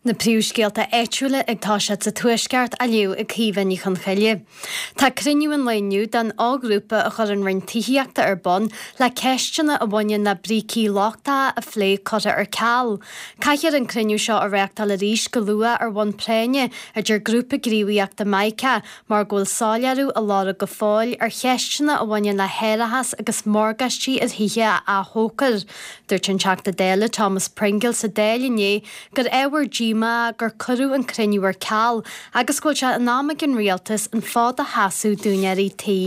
Na príomhscéalta áitiúla ag toiseacht sa Tuaisceart á léamh ag Caoimhe Ní Chonchoille. Tá cruinniú an lae inniu den fhoghrúpa a chuir an Roinn Tithíochta ar bun le ceisteanna a bhaineann le brící lochtacha a phlé curtha ar ceal. Caithfear an cruinniú seo a reáchtáil arís go luath ar bhonn práinne, a deir grúpa gníomhaíochta Mica, mar go bhfuil soiléiriú á lorg go fóill ar cheisteanna a bhaineann le hárachas agus morgáistí ar thithe a athshocrú. Dúirt an Teachta Dála Thomas Pringle sa Dáil inné gur ábhar díomá gur cuireadh an cruinniú ar ceal agus go bhfuil sé in am ag an Rialtas an fód a sheasamh d'úinéirí tí.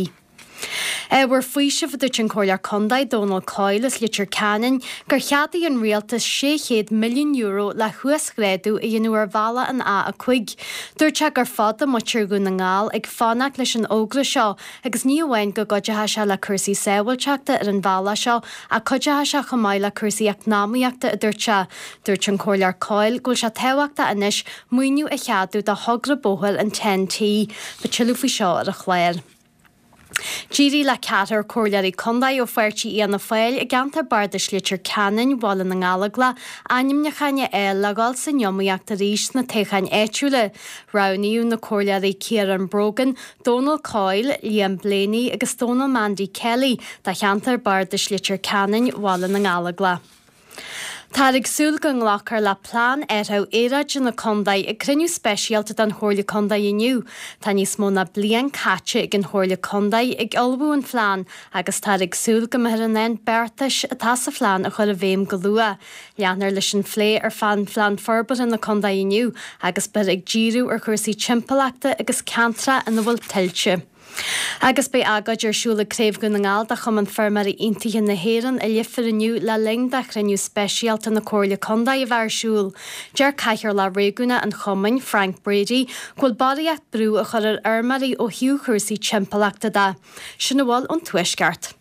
Ábhar faoisimh, a dúirt an Comhairleoir Contae Dónal Coyle as Leitir Ceanainn, gur cheadaigh an Rialtas €600 milliún le huasghrádú a dhéanamh ar bhealach an A5. Dúirt sé gur fada muintir Dhún na nGall ag fanacht leis an fhógra seo agus ní amháin go gcuideoidh sé le cúrsaí sábháilteachta ar an bhealach seo ach cuideoidh sé chomh maith le cúrsaí eacnamaíochta, a dúirt sé. Dúirt an Comhairleoir Coyle go bhfuil sé tábhachtach anois maoiniú a cheadú do thogra bóthair an Ten-T. Beidh tuilleadh faoi seo ar an chlár. D'éirigh le ceathrar comhairleoirí contae ó pháirtí Fhianna Fáil i gceantar bardais Leitir Ceanainn, Bhaile na nGallóglach, ainmniúcháin a fháil le dhul san iomaíocht arís sna toghcháin áitiúla. Roghnaíodh na comhairleoirí Ciarán Brogan, Dónal Coyle, Liam Blaney agus Dónal Mandy Kelly do cheantar bardais Leitir Ceanainn, Bhaile na nGallóglach. Táthar ag súil go nglacfar le Plean Athraithe Aeráide na Contae ag cruinniú speisialta den Chomhairle Contae inniu. Tá níos mó ná bliain caite ag an Chomhairle Contae ag ullmhú an phlean agus táthar ag súil go mbeifear in ann beartais atá sa phlean a chur i bhfeidhm go luath. Leanfar leis an phlé ar Phlean Forbartha na Contae inniu agus beifear ag díriú ar chúrsaí timpeallachta agus ceantracha ina bhfuil tuilte. Agus beidh agóid ar siúl ag Craobh Dhún na nGall de Chumann Feirmeoirí Aontaithe na hÉireann i Leifear inniu le linn do chruinniú speisialta na Comhairle Contae a bheith ar siúl. Deir Cathaoirleach Réigiúnach an Chumainn, Frank Brady, go bhfuil barraíocht brú á chur ar fheirmeoirí ó thaobh chúrsaí timpeallachta de. Sin a bhfuil ón Tuaisceart.